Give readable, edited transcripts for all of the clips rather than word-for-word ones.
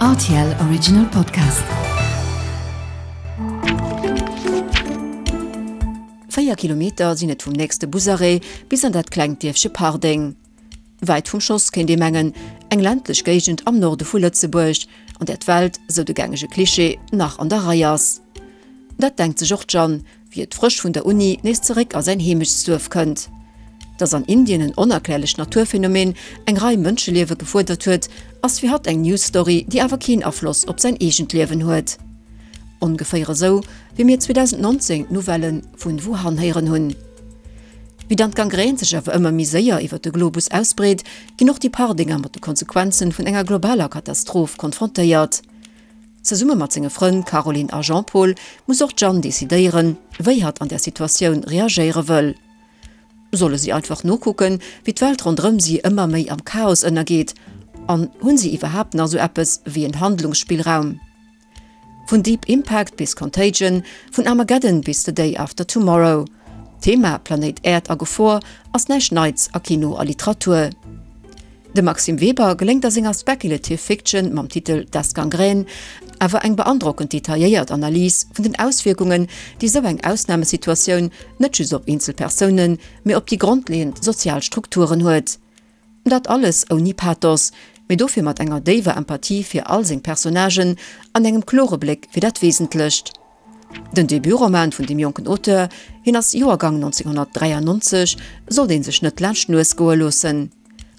Rtl Original Podcast. 4 Kilometer sinn et vum nächste Busarrêt bis an dat klengt Dierfche Pardeng. Wäit vum Schoss, kéint ee mengen, eng ländlech Géigend am Norde vu Lëtzebuerg, an där d'Welt, sou de gängege Klischee, nach an der Rei ass. Dat denkt sech och d'Jeanne, wéi et frësch vun der Uni nees zeréck a säin Heemechtsduerf kënnt. Dass an Indien en onerklärlecht Naturphänomen eng Rei Mënscheliewe gefuerdert huet, ass fir hatt eng News-Story, déi awer keen Afloss op säin eegent Liewen huet. Ongeféier esou, wéi mir 2019 d'Nouvellë vun Wuhan héieren hunn. Wéi dann d'Gangrän sech awer ëmmer méi séier iwwer de Globus ausbreet, ginn och déi Pardinger mat de Konsequenzen vun enger globaler Katastroph konfrontéiert. Zesumme mat senge Frënn Caroline a Jean-Paul muss och d'Jeanne decidéieren, wéi hatt an där Situatioun reagéiere wëll. Solle si einfach nokucken, wéi d'Welt ronderëm si ëmmer méi am Chaos ënnergeet? An hunn si iwwerhaapt nach esou eppes wéi en Handlungsspillraum? Vun Deep Impact bis Contagion, vun Armageddon bis The Day After Tomorrow, d'Thema Planéit Äerd a Gefor ass näischt Neits a Kino a Literatur. Dem Maxime Weber geléngt a senger Speculative Fiction mam Titel Das Gangrän awer eng beandrockend detailléiert Analys vun den Auswierkungen, déi esou eng Ausnamesituatioun net just op eenzel Persounen, mee op déi grondleeënd sozial Strukturen huet. Dat alles ouni Pathos, mee dofir mat enger déiwer Empathie fir all seng Personnagen an engem klore Bléck fir dat Wesentlecht. Den Debutroman vun deem jonken Auteur, hien ass Joergang 1993, sollt ee sech net laanscht d'Nues goe loossen.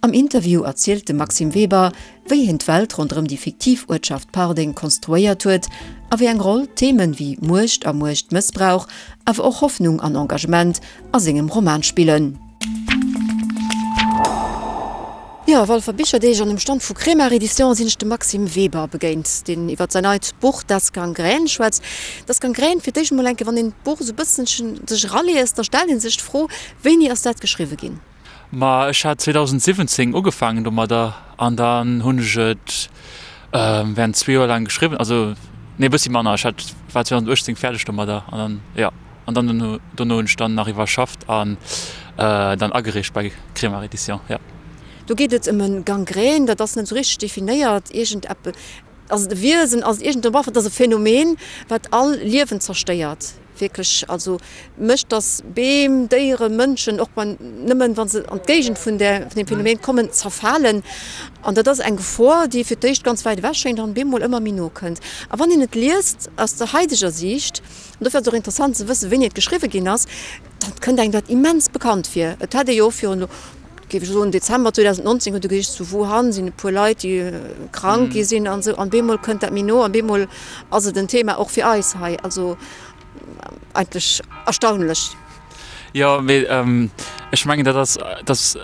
Am Interview erzielt de Maxime Weber, wéi hien d'Welt ronderëm déi fiktiv Uertschaft Pardeng konstruéiert huet a wéi eng Roll Themen wéi Muecht a Muechtmëssbrauch, awer och Hoffnung an Engagement a sengem Roman spillen. Jo, Walfer Bicherdeeg an um Stand vu Kremart Edition sinn ech dem Maxime Weber begéint, deen iwwer säin neit Buch Das Gangrän schwätzt. Das Gangrän, fir d'éischt emol enke, wann een d'Buch esou e bësselchen sech eraliest, da stellt ee sech d'Fro, Wéini ass dat geschriwwe ginn? Ma ech hat 2017 ugefaangen domadder an dann hunn ech et während zwee Joer laang geschriwwen, also nee e bëssi manner, ech hat war 2018 fäerdeg domadder an dann jo. An dann dono, dono hunn ech dann nach iwwerschafft an dann agereecht bei Kremart Edition, jo. Do geet et ëm e Gangrän, dat ass net esou richteg definéiert, iergend eppe, ass et e Wiesen, ass et iergend, bref, et ass e Phänomen, wat all Liewen zerstéiert, wierklech, also mécht, datt Beem, Déieren, Mënschen, och bei, nëmmen wa se an d'Géigend vun där, vun deem Phänomen kommen, zerfalen. An dat ass eng Gefor, déi fir d'éischt ganz wäit ewech schéngt an bemol ëmmer méi no kënnt. A wann een et liest aus der haideger Siicht, An dofir ass et och interessant ze wëssen, wéini et geschriwwe ginn ass. Dat kënnt engem dat immens bekannt vir. Et hätt ee jo och virun, géif ech soen, Dezember 2019 huet e gesicht, zu Wuhan sinn e puer Leit, déi krank gi sinn an esou. An bemol kënnt dat méi no an bemol ass et en Thema och fir eis hei. Also eigentlech erstaunlech. Jo, mee ech mengen, dat ass, dat ass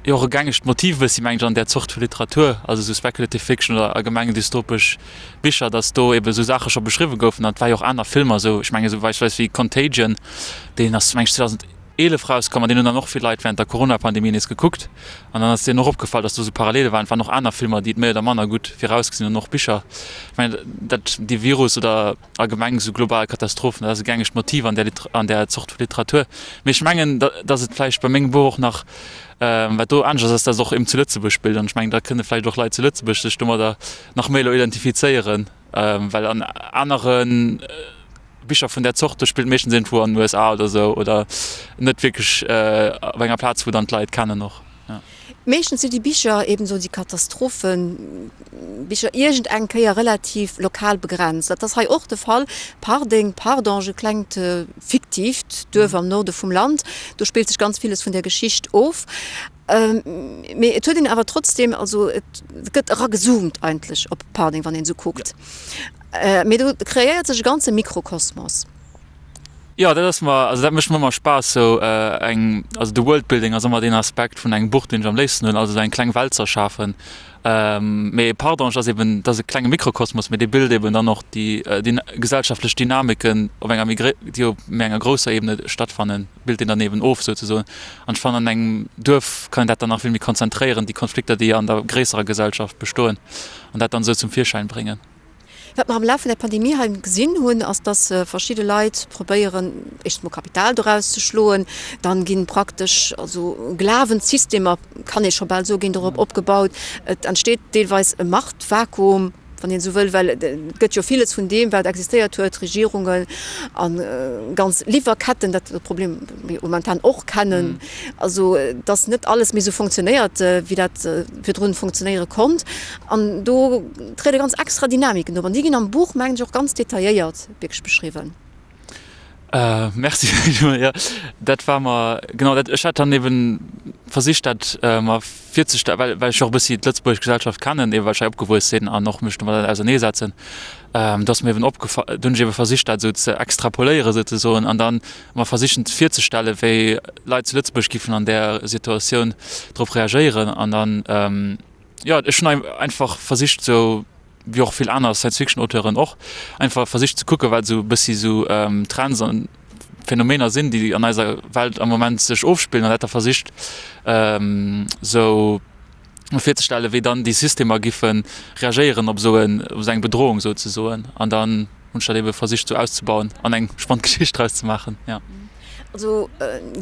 jo och e gängegt Motiv e bëssi, mengen ech, an där Zort vu Literatur, also esou Speculative Fiction oder allgemeng dystopesch Bicher, dass do eben esou Saache scho beschriwwe goufen. An et war jo och aner Filmer esou, ech mengen esou beispillsweis wéi Contagion, deen ass meng ech 2011 rauskomm an deen hunn dann och vill Leit während der Corona-Pandemie nees gekuckt. An dann ass deenen och opgefall, dass do esou Parallele waren. Et waren och aner Filmer, déi et méi oder manner gutt virausgesinn hunn, och Bicher. Ech mengen dat dee Virus oder allgemeng esou global Katastrophen, dat ass e gängegt Motiv an där an där Zort vu Literatur. Mee ech mengen, dass et vläicht bei mengem Buch och nach, wat do anescht ass, ass, dass et och eben zu Lëtzebuerg spillt. An ech mengen, da kënne vläicht och Leit zu Lëtzebuerg sech domadder nach méi elo identifizéieren, well an anere Bicher vun där Zort, do spillt meeschtens iergendwou an den USA oder esou oder net wierklech op enger Plaz, wou dann d'Leit kennen och. Meeschtens si déi Bicher, eben esou déi Katastrophenbicher, iergend eng Kéier relativ lokal begrenzt. Dat ass hei och de Fall. Pardeng, Pardange, e klengt fiktiivt Duerf am Norde vum Land, do spillt sech ganz villes vun der Geschicht of. Mee et huet een awer trotzdem, also et gëtt eragezoomt eigentlech op Pardeng, wann een esou kuckt. Mee do kreéiert sech e ganze Mikrokosmos. Jo, dat ass mer, also dat mécht mer ëmmer Spaass, sou eng, also de Worldbuilding ass ëmmer deen Aspekt vun engem Buch, deen ech am léifsten hunn, also sou eng kleng Welt z'erschafen. Mee Pardange ass eben, dat ass e klenge Mikrokosmos, mee dee bilt eben dann och déi gesellschaftlech Dynamiken op enger méi, déi op méi enger grousser Ebene stattfannen, bilt deen dann eben of souzesoen. An ech fannen, an engem Duerf kann een dat dann nach vill méi konzentréieren, déi Konflikter, déi an der gréisserer Gesellschaft bestoen, an dat dann esou zum Virschäin bréngen. Wat mer am Laf vun der Pandemie hei gesinn hunn, ass, dass verschidde Leit probéieren, éischtens mol Kapital doraus ze schloen. Dann gi praktesch also Glawenssystemer, kann ee scho bal soen, ginn dorop opgebaut. Et entsteet deelweis e Machtvakuum. wann een esou wëll, well et gëtt jo villes vun deem, wat existéiert huet, Regierungen a ganz Liwwerketten, dat Problem mir momentan och kennen, also dass net alles méi esou fonctionnéiert, wéi dat virdrun fonctionnéiere konnt. An do triede ganz extra Dynamiken op an déi ginn am Buch, mengen ech, och ganz detailléiert wierklech beschriwwen. Merci jo dat war mer genau dat ech hat dann eben versicht dat mer virzestellen, well well ech och e bëssi d'lëtzebuergesch Gesellschaft kennen, eben well ech hei opgewuess sinn an och mech domadder auserneesetzen, do ass mir eben opgefa do hunn ech ebe versicht dat esou ze extrapoléieren souzesoen an dann mer versichen virzestellen, wéi Leit zu Lëtzebuerg giffen an där Situatioun drop reagéieren an dann jo ech hunn einfach versicht esou wéi och vill aner Science-Fiction-Auteuren och, einfach versicht ze kucken, wat esou e bëssi esou Trends an Phänomener sinn, déi an eiser Welt am Moment sech ofspillen an dat da versicht esou virzestellen, wéi dann déi Systemer giffe reagéieren op esou en, op esou eng Bedrohung souzesoen. An dann hunn ech dat ebe versicht esou auszebauen an eng spannend Geschicht draus ze maachen, jo. Also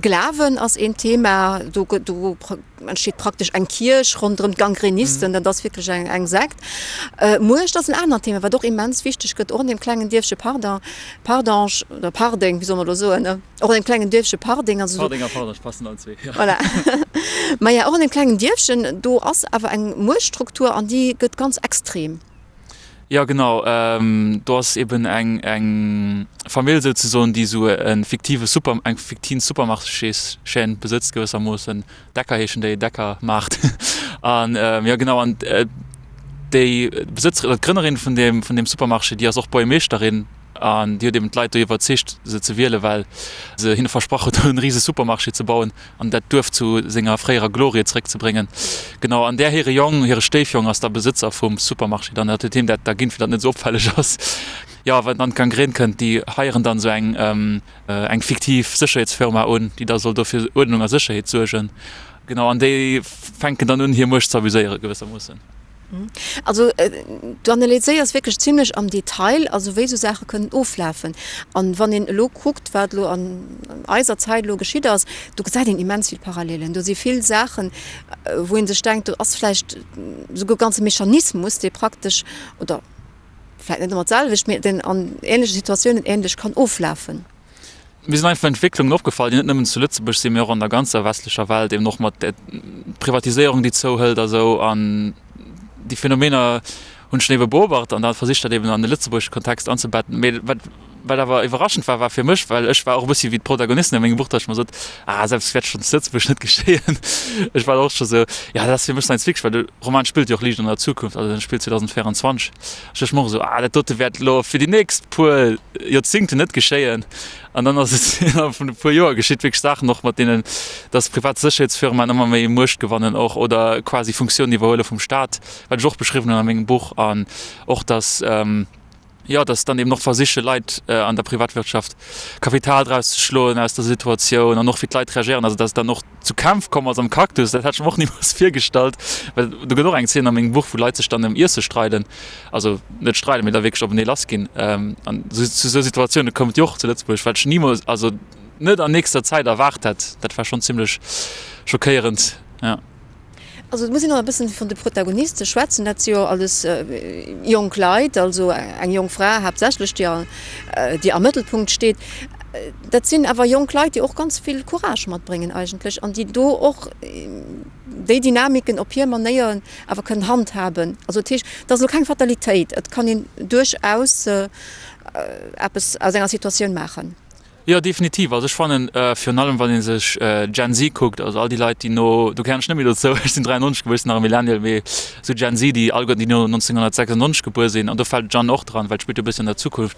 Glawen ass een Thema, do do entsteet praktesch eng Kierch ronderëm d'Gangrenisten, dat ass wierklech eng eng Sekt. Muecht ass en anert Thema, wat och immens wichteg gëtt, och an deem klengen Dierfche Pardon, Pardange oder Pardeng, wéi soll mer elo soen, ne? Och an deem klengen Dierfche Pardeng, also Pardeng a Pardange passen allen zwee, jo. Voilà. Maja, och an deem klengen Dierfchen, do ass awer eng Muechtstruktur an déi gëtt ganz extrem. Jo genau, do ass eben eng eng Famill souzesoen, déi esou e fiktive Super eng fiktiv Supermarchéschaîne besëtzt gewëssermoossen, Decker heeschen déi, Decker Maart an jo genau an déi Besëtzerin oder d'Grënnerin vun deem vun deem Supermarché, déi ass och Buergermeeschterin an déi huet eben d'Leit do iwwerzeegt se ze wielen, well se hinne versprach huet do en rise Supermarché ze bauen. an dat Duerf zu senger fréierer Glorie zeréckzebréngen. Genau, an där hire Jong, hire Stéifjong ass da Besëtzer vum Supermarché dann. Dat huet him dat da ginn, fir datt et net esou opfälleg ass. Jo, wann dann d'Gangrän kënnt, déi heieren dann esou eng, eng fiktiv Sécherheetsfirma un, déi da soll do fir Uerdnung a Sécherheet suergen. Genau, an déi fänken dann un, hir Muecht ze abuséieren, gewëssermoossen. Also du analyséiers wierklech zimlech am Detail, also wéi esou Saache kënnen oflafen. An wann een elo kuckt, wat elo an eiser Zäit elo geschitt ass, do gesäit een immens vill Parallelen. Do si vill Saachen, wou ee sech denkt, do ass vläicht esouguer e ganze Mechanismus, dee praktesch, oder vläicht net ëmmer d'selwecht, mee deen an änleche Situatiounen änlech kann oflafen. Mir sinn einfach Entwécklungen opgefall, déi net nëmmen zu Lëtzebuerg sinn, mee och an der ganzer westlecher Welt, eben och mat der Privatiséierung, déi zouhëlt a sou. An déi Phänomener hunn ech dann ebe beobacht an da versicht, dat eben an de lëtzebuergesche Kontext anzebetten. Mee wat, wat awer iwwerraschend war, war fir mech, well ech war och e bëssi wéi d'Protagonisten a mengem Buch, datt ech mer sot, Ah, esou eppes wäert schonn zu Lëtzebuerg net geschéien. Ech war och scho sou, jo, dat ass fir mech Science Fiction, well de Roman spillt jo och liicht an der Zukunft, also en spillt 2024. Ech duecht mer och esou, Ah, dat dote wäert elo fir déi nächst puer Joerzingten net geschéien. An dann ass et innerhalb vun e puer Joer geschitt, wierklech Saachen och mat deenen, dass privat Sécherheetsfirmaen ëmmer méi Muecht gewannen och oder quasi Funktiounen iwwerhuele vum Staat, wat ech och beschriwwen hunn a mengem Buch. An och dass, jo, dass dann eben och versiche Leit an der Privatwirtschaft Kapital draus ze schloen aus der Situatioun an och wéi d'Leit reagéieren, also dass et dann och zu Kämpf komm ass am Cactus, dat hätt ech mer och nimools virgestallt, well do gëtt och eng Zeen a mengem Buch, wou Leit sech dann ëm Iesse streiden, also net streiden, mee da wierklech openee lass ginn. An zu esou Situatioune koum et jo och zu Lëtzebuerg, wat ech nimools, also net an nächster Zäit erwaart hätt. Dat war schonn zimmlech schockéierend, jo. Also et muss een och e bëssen vun de Protagoniste schwätzen. Dat si jo alles jonk Leit, also eng jonk Fra haaptsächlech, déi déi am Mëttelpunkt steet. Dat sinn awer jonk Leit, déi och ganz vill Courage matbréngen eigentlech an déi do och déi Dynamiken op hir Manéier awer kënnen handhaben. Also dat heescht, et ass elo keng Fatalitéit, et kann een duerchaus eppes aus enger Situatioun maachen. Jo, definitiv. Also ech fannen, virun allem wann ee sech Gen Z kuckt, also all déi Leit, déi no, do gehéieren ech net méi dozou, ech sinn 93 gebuer, ech sinn nach e Millennial, mee esou Gen Z, déi alleguerten, déi no 1996 gebuer sinn, an do fält d'Jeanne och dran, well d'spillt jo e bëssi an der Zukunft,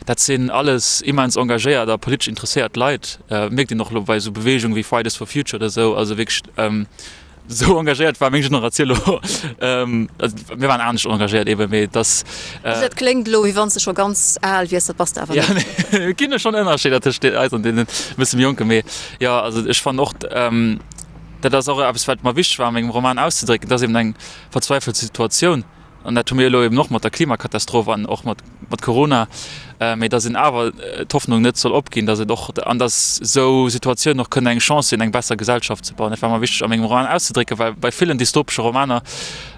dat sinn alles immens engagéiert a politesch interesséiert Leit. Mierkt een och elo bei esou Beweegunge wéi Fridays for Future oder esou, also wierklech, Esou engagéiert war meng Generatioun elo, also mir waren anescht engagéiert eben, mee et ass. Also dat kléngt elo, wéi wann s de scho ganz al wiers, dat bass de awer net. Jo, et ginn jo schonn Ënnerscheeder tëscht eis an deenen e bësse méi Jonken, mee jo, also ech fannen och, dat ass och eppes, wat mer wichteg war a mengem Roman auszedrécken, et ass eben eng verzweifelt Situatioun an dat hu mir elo eben och mat der Klimakatastroph an och mat. mat Corona, mee datt een awer d'Hoffnung net soll opginn, datt et och, an datt esou Situatiounen och kënnen eng Chance sinn, eng besser Gesellschaft ze bauen. Dat war mer wichteg a mengem Roman auszedrécken, well bei villen dystopesche Romaner,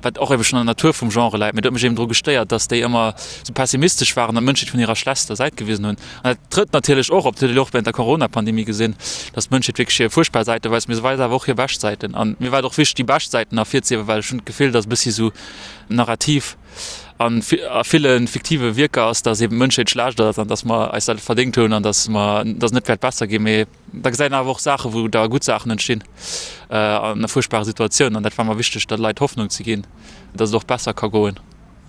wat och ebe schonn an der Natur vum Genre läit, mee dat huet mech eben dru gestéiert, datt déi ëmmer esou pessimistesch waren an d'Mënschheet vun hirer schlechtster Säit gewisen hunn. An dat trëtt natierlech och op, dat huet een och während der Corona-Pandemie gesinn, datt d'Mënschheet wierklech hir fuerchtbar Säite weist, mee se weist awer och hir bescht Säiten. An mir war et och wichteg, déi bescht Säiten ervirzehiewen, well ech hunn d'Gefill, datt e bëssi esou Narrativ a ville fiktive Wierker ass, datt eben d'Mënschheet schlecht ass an datt mer eis dat verdéngt hunn an datt mer, datt et net wäert besser ginn. Mee da gesäit een awer och Saachen, wou da gutt Saachen entstinn an a fuerchtbare Situatiounen. An dat war mer wichteg, der Leit Hoffnung ze ginn, datt et och besser ka goen.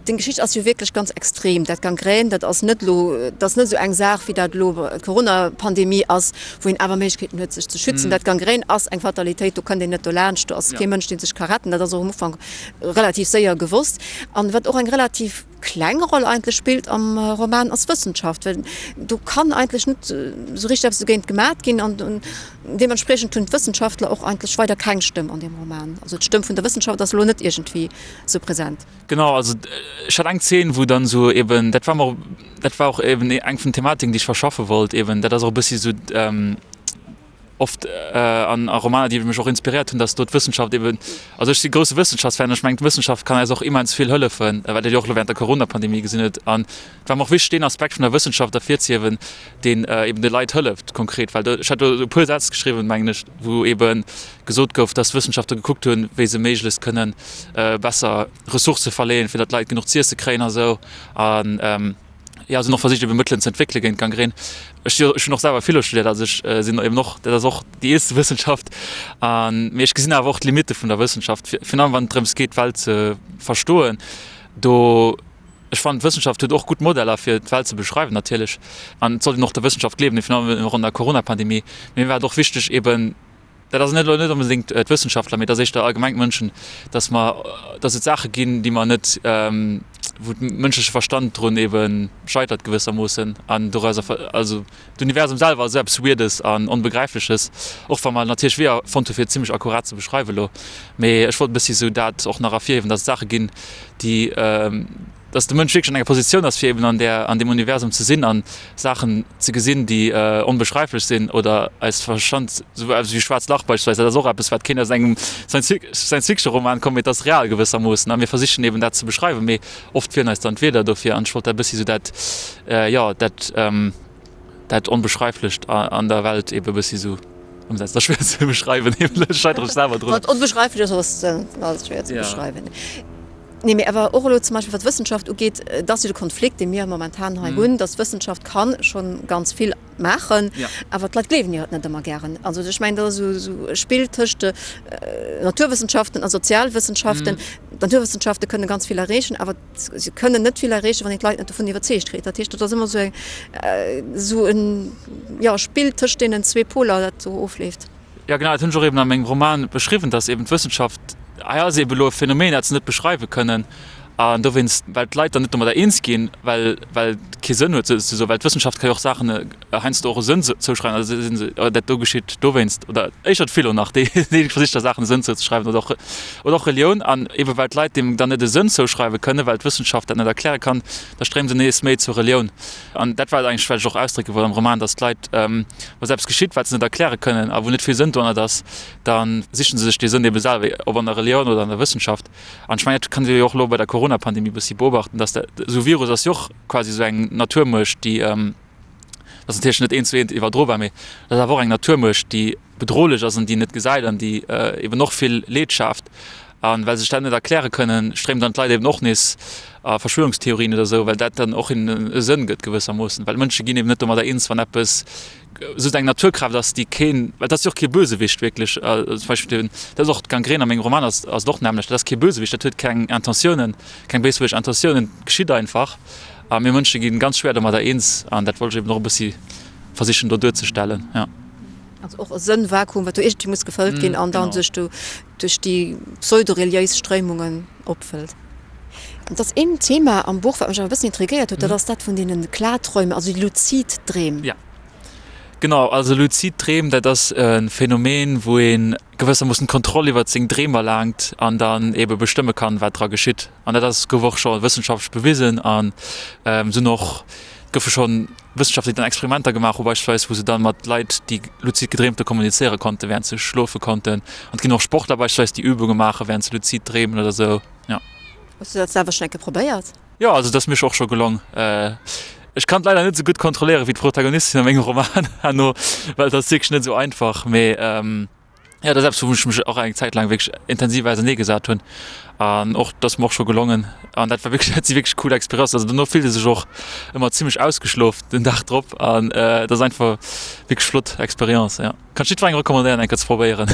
Deng Geschicht ass jo wierklech ganz extrem. Dat Gangrän, dat ass net elo, dat ass net esou eng Saach, wéi dat elo d'Corona-Pandemie ass, wou een awer Méiglechkeeten huet, sech ze schützen. Dat Gangrän ass eng Fatalitéit, do kënnt een net dolaanscht, do ass kee Mënsch, dee sech ka retten. Dat ass och am Ufank relativ séier gewosst. An wat och eng relativ kleng Roll eigentlech spillt am Roman, ass d'Wëssenschaft, well do kann eigentlech net esou richteg eppes dogéint gemat ginn. An deementspriechend hunn d'Wëssenschaftler och eigentlech weider keng Stëmm an deem Roman. Also d'Stëmm vun der Wëssenschaft ass elo net iergendwéi esou present. Genau, also ech hat eng Zeen, wou dann esou eben, dat war mer, dat war och eben eng vun den Thematiken, déi ech verschaffe wollt eben, dat ass och e bëssi esou oft an a Romaner, déi mech och inspiréiert hunn, datt do d'Wëssenschaft eben, also ech si grousse Wëssenschaftsfan, ech mengen d'Wëssenschaft kann eis och immens vill hëllefen, wat een jo och elo während der Corona-Pandemie gesinn huet. An et war mer och wichteg, deen Aspekt vun der Wëssenschaft ervirzehiewen, deen eben de Leit hëlleft konkret, well do, ech hat do e puer Sätz geschriwwen, mengen ech, wou ebe gesot gouf, dass d'Wëssenschaftler gekuckt hunn, wéi se méiglechst kënnen besser Ressourcë verleeën, fir datt d'Leit genuch z'iesse kréien a sou. An jo, se hunn och versicht, ebe Mëttelen ze entwéckele géint d'Gangrän. Ech si ech hunn och selwer Philo studéiert, also ech sinn eben och, dat ass och déi eelste Wëssenschaft. An, mee ech gesinn awer och d'Limitte vun der Wëssenschaft, virun allem wann et drëms geet, d'Welt ze verstoen. Do. Ech fannen d'Wëssenschaft huet och gutt Modeller fir d'Welt ze beschreiwen natierlech an et sollt een och der Wëssenschaft gleewen, virun allem och an der Coronapandemie. Mee mir war et och wichteg eben, dat ass net elo net onbedéngt d'Wëssenschaftler, mee et ass éischter allgemeng d'Mënschen, datt mer, datt et Saache ginn, déi mer net, wou de mënschleche Verstand drun ebe scheitert gewëssermoossen an dorauser, also d'Universum selwer ass esou eppes Weirdes an Onbegräifleches, och wa mer natierlech Weeër fonnt hu fir et zimmlech akkurat ze beschreiwen elo. Mee ech wollt e bëssi esou dat och nach ervirhiewen, datt et Saache ginn, déi, dass de Mënsch wierklech an enger Positioun ass, fir eben an där, an deem Universum ze sinn an Saachen ze gesinn, déi onbeschreiflech sinn oder eis Verstand, esou eppes wéi schwaarzt Lach beispillsweis, dat ass och eppes, wat kéint aus engem Science-Fiction-Roman kommen, mee et ass real gewëssermoossen a mir versichen eben dat ze beschreiwen, mee oft feelen eis dann d'Wierder dofir an ech wollt dat e bëssi esou dat, jo, dat. Dat Onbeschreiflecht an der Welt eben e bëssi sou ëmsetzen. Dat ass schwéier ze beschreiwen, ech scheitere selwer drun. Wat onbeschreiflech ass, ass schwéier ze beschreiwen. Nee, mee awer och elo zum Beispill wat d'Wëssenschaft ugeet, et ass jo de Konflikt, dee mir momentan hei hunn, datt d'Wëssenschaft ka scho ganz vill maachen, awer d'Leit gleewen hir et net ëmmer gären. Also ech mengen, dat ass esou e Spill tëscht Naturwëssenschaften a Sozialwëssenschaften. D'Naturwëssenschafte kënne ganz vill erreechen, awer Se kënnen net vill erreechen, wann een d'Leit net dovun iwwerzeegt kritt. Dat heescht, dat ass ëmmer esou eng, esou en, jo, Spill tëscht deenen zwee Poler, dat do ofleeft. Jo, genau, dat hunn ech och eben a mengem Roman beschriwwen, dass eben d'Wëssenschaft, hei ass eben elo e Phänomen, dat se net beschreiwe kënnen, an dowéinst, well d'Leit dann net domadder eens ginn, well, well et kee Sënn huet, souzesoen, well d'Wëssenschaft ka jo och Saachen heiansdo och e Sënn zouschreiwen, also si se, oh dat do geschitt dowéinst, oder éischter d'Philo nach, déi déi versicht da Saachen e Sënn zouzeschreiwen, oder och oder och Relioun. An eebe well d'Leit deem dann net e Sënn zouschreiwe kënnen, well d'Wëssenschaft dat net erkläre kann, da stréimen se nees méi zur Relioun. An dat war et eigentlech, wat ech och ausdrécke wollt am Roman, datt d'Leit, wa se eppes geschitt, wat se net erkläre kënnen a wou net vill Sënn dohannert ass, da sichen se sech dee Sënn eebe selwer, ob an der Relioun oder an der Wëssenschaft. An ech mengen, dat kann ee jo och elo bei der Coronapandemie e bëssi beobachten, datt dat, esou e Virus ass jo och quasi esou eng Naturmuecht, déi, Dat ass natierlech net eent zu eent iwwerdrobar, mee dat ass awer och eng Naturmuecht, déi bedrohlech ass an déi een net gesäit an déi eben och vill Leed schaaft. A well se sech dat net erkläre kënnen, stréimen dann d'Leit eben och nees a Verschwörungstheorien oder esou, well dat dann och hinnen e Sënn gëtt gewëssermoossen. Well Mënsche ginn eben net domadder eens, wann eppes esou eng Naturkraaft ass, déi keen, well dat ass jo och kee Bösewicht wierklech, zum Beispill den, dat ass och d'Gangrän a mengem Roman ass ass et och d'nämmlecht, dat ass kee Bösewicht, dat huet keng Intentiounen, keng béiswëlleg Intentiounen, et geschitt einfach. A mir Mënsche gi ganz schwéier domadder eens an dat wollt ech eben och e bëssi versichen do duerzestellen, jo. Also och e Sënnvakuum, wat do iergendwéi muss gefëllt ginn an dann sech do duerch déi pseudo-reliéis Stréimungen opfëllt. Et ass een Thema am Buch, wat mech awer e bëssen intriguéiert huet, dat ass dat vun deene Klarträume, also déi luzid Dreem. Jo. Genau, also luzid Dreem, dat ass e Phänomen, wou ee gewëssermoossen d'Kontroll iwwert seng Dreem erlaangt an dann eebe bestëmme kann, wat dra geschitt. An dat ass, gouf och scho wëssenschaftlech bewisen an sinn och, goufe scho Wëssenschaftler, déi dann Experimenter gemaach hu beispillsweis, wou se dann mat Leit, déi luzid gedreemt hu kommunizéiere konnten, wärend se schlofe konnten. An et ginn och Sportler beispillsweis, déi Übunge maache wärend se luzid dreemen oder sou, jo. Hues du dat selwer schonn eng Kéier probéiert? Jo, also et ass mir och scho gelong. Ech kann et leider net esou gutt kontrolléieren wéi d'Protagonistin a mengem Roman herno, well et ass wierklech net esou einfach. Mee jo, dat ass eppes, wou ech mech och eng Zäit laang wierklech intensiv auserneegesat hunn. An och, dat ass mer och scho gelongen. An dat war wierklech, dat si wierklech cool Experienzen. Also dono fillt ee sech och ëmmer zimmlech ausgeschlof den Dag drop an et ass einfach wierklech flott Experience, jo. Kann ech jiddwerengem recommandéieren eng Kéier ze probéieren.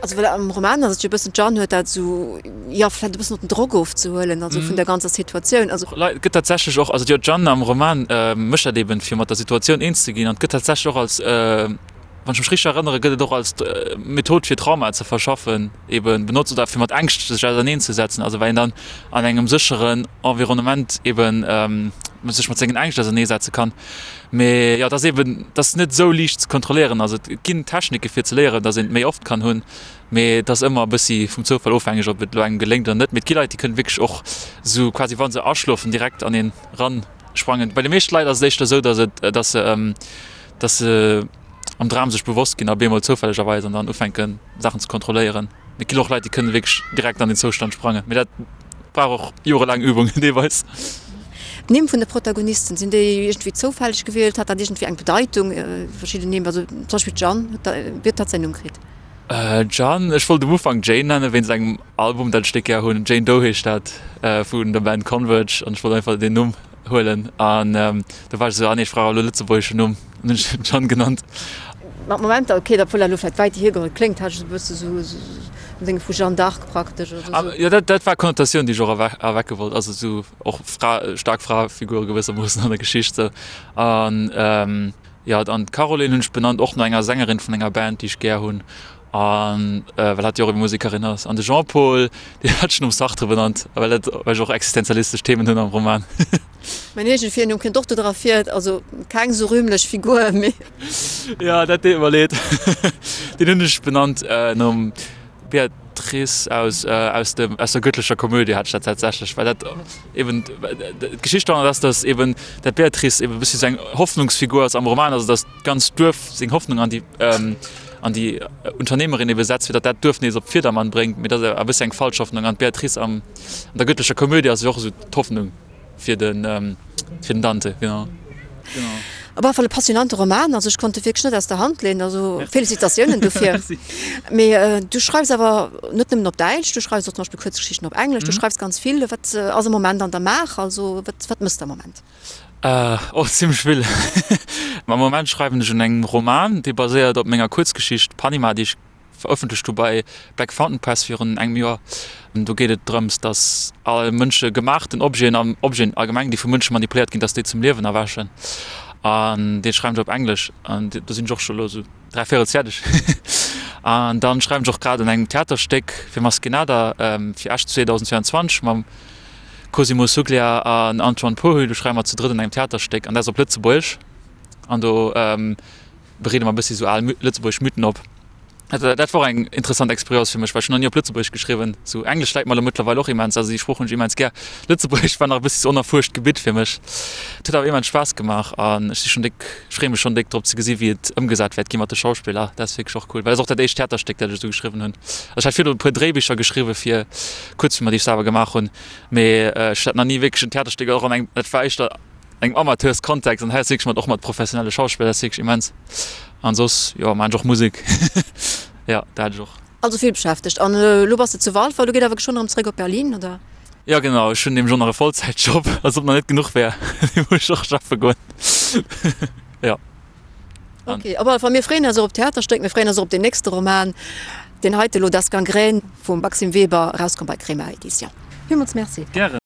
Also well am Roman ass et jo e bëssen, d'Jeanne huet dat esou, jo vläicht e bëssen och den Drock ofzehuelen, also vun der ganzer Situatioun. Also. Et gëtt tatsächlech och, also jo d'Jeanne am Roman mécht dat eben fir mat der Situatioun eens ze ginn an et gëtt tatsächlech och als, wann ech mech richteg erënnere gëtt et och als Method fir Traumae ze verschaffen eben benotzt oder fir mat Ängscht sech auserneen ze setzen, also well een dann an engem sécheren Environnement eben sech mat sengen Ängscht ausernee setze kann. Mee jo, et ass eben, et ass net esou liicht ze kontrolléieren. Also et ginn Technike fir ze léieren, datt een et méi oft kann hunn, mee et ass ëmmer e bëssi vum Zoufall ofhängeg, ob et elo engem geléngt oder net. Mee et gi Leit, déi kënnen wierklech och esou quasi wa se aschlofen direkt an een ran sprangen. Bei de meeschte Leit ass et éischter esou, datt et, datt se, datt se am Dram sech bewosst ginn a bemol zoufällegerweis an dann ufänken Saachen ze kontrolléieren. Mee et ginn och Leit, déi kënnen wierklech direkt an den Zoustand sprangen. Mee dat brauch och jorelaang Übung deelweis. D'Nimm vun de Protagonisten, sinn déi iergendwéi zoufälleg gewielt? Hat dat iergendwéi eng Bedeitung, verschidden Nimm? Also zum Beispill d'Jeanne, wéi huet hatt säin Numm kritt? Jeanne, ech wollt um Ufank Jane nennen, wéinst engem Album, dat ech déck gär hunn. Jane Doe heescht dat, vun der Band Converge. An ech wollt einfach deen Numm huelen. An du war ech esou, ah nee, ech brauch elo e lëtzebuergeschen Numm. An hunn ech en Jeanne genannt. Mat Momenter, ok, obwuel dat elo vläicht wäit hiergeholl kléngt, hat ech esou e bësse sou en Dénge vu Jeanne d'Arc praktesch oder sou. Jo, dat, dat war d'Konnotatioun, déi ech och erwecke wollt. Also esou och Fra, staark Fraefigure gewëssermoossen an der Geschicht sou. An jo, an d'Caroline hunn ech benannt och no enger Sängerin vun enger Band, déi ech gär hunn. An well hatt jo och ebe Musekerin ass. An de Jean-Paul, deen hat ech nom Sartre benannt, well dat, well ech och existenzialistesch Themen hunn am Roman. Mäin eegene Virnumm kënnt och do dra vir, also keng sou rühmlech Figur, mee. Jo, dat deet mer leed. Deen hunn ech benannt nom Beatrice aus aus dem aus der göttlecher Komödie hat ech dat tatsächlech, well dat eben d'Geschicht doranner ass, datt eben dat Beatrice eben e bëssi sou eng Hoffnungsfigur ass am Roman, also datt d'ganzt Duerf seng Hoffnung an déi an déi Unternehmerin ebe setzt, fir datt dat Duerf nees op Virdermann bréngt, mee dat ass e bëssi eng falsch Hoffnung an d'Beatrice am an der göttlecher Komödie ass jo och esou d'Hoffnung. Fir den, fir den Dante, genau. Genau. Op alle Fall e passionante Roman, also ech konnt e wierklech net aus der Hand leeën, also Félicitatiounen dofir. Merci. Mee du schreifs awer net nëmmen op Däitsch, du schreifs och zum Beispill Kuerzgeschichten op Englesch, du schreifs ganz vill. Wat ass am Moment an der Maach, also wat, wat mëss de am Moment? Och zimmlech vill. Am Moment schreiwen ech un engem Roman, dee baséiert op menger Kuerzgeschicht Panima, déi ech verëffentlecht hu bei Black Fountain Press virun engem Joer. Do geet et drëms, datt all Mënsche gemaachten Objeten an Objeten allgemeng, déi vu Mënsche manipuléiert ginn, datt déi zum Liewen erwächen. An dee schreiwen ech op Englesch an do sinn ech och scho elo esou dräivéierels fäerdeg. An dann schreiwen ech och grad un engem Theaterstéck fir Maskenada fir Esch 2022 mam Cosimo Suglia an Antoine Pohu. Do schreiwe mer zu drëtt un engem Theaterstéck an dat ass op Lëtzebuergesch an do bereede mer e bëssi sou al lëtzebuergesch Mythen op. Dat dat war och eng interessant Expérience fir mech, well ech hunn nach ni op Lëtzebuergesch geschriwwen. Sou Englesch läit mer elo mëttlerweil och immens, also déi Sprooch hunn ech immens gär. Lëtzebuergesch war nach e bëssi sou onerfuerscht Gebitt fir mech. Et huet awer immens Spaass gemaach an ech si schonn déck, ech freeë mech schonn déck drop ze gesi wéi et ëmgesat wäert gi mat de Schauspiller. Dat ass wierklech och cool, well et ass och dat éischt Theaterstéck, dat ech esou geschriwwen hunn. Also ech hat virdru e puer Dréibicher geschriwwe fir Kuerzfilmer, déi ech selwer gemaach hunn, mee ech hat nach ni wierklech en Theaterstéck och an engem, dat war éischter engem Amateurskontext an hei ass wierklech mat och mat professionelle Schauspiller, dat ass wierklech immens. An soss jo maan ech och Musek, jo dat hat ech och. Also vill beschäftegt. An elo bass de zu Walfer, elo geet awer geschwënn erëm zréck op Berlin, oder? Jo genau, ech hunn nämlech och nach e Vollzäitjob, als ob nach net genuch wär, dee muss ech och schaffe goen, jo. Ok, op alle Fall mir freeën eis och op d'Theaterstéck, mir freeën eis och op deen nächste Roman, deen heite elo Das Gangrän vum Maxime Weber, erauskomm bei Crema Edition. Villmools Merci. Gären.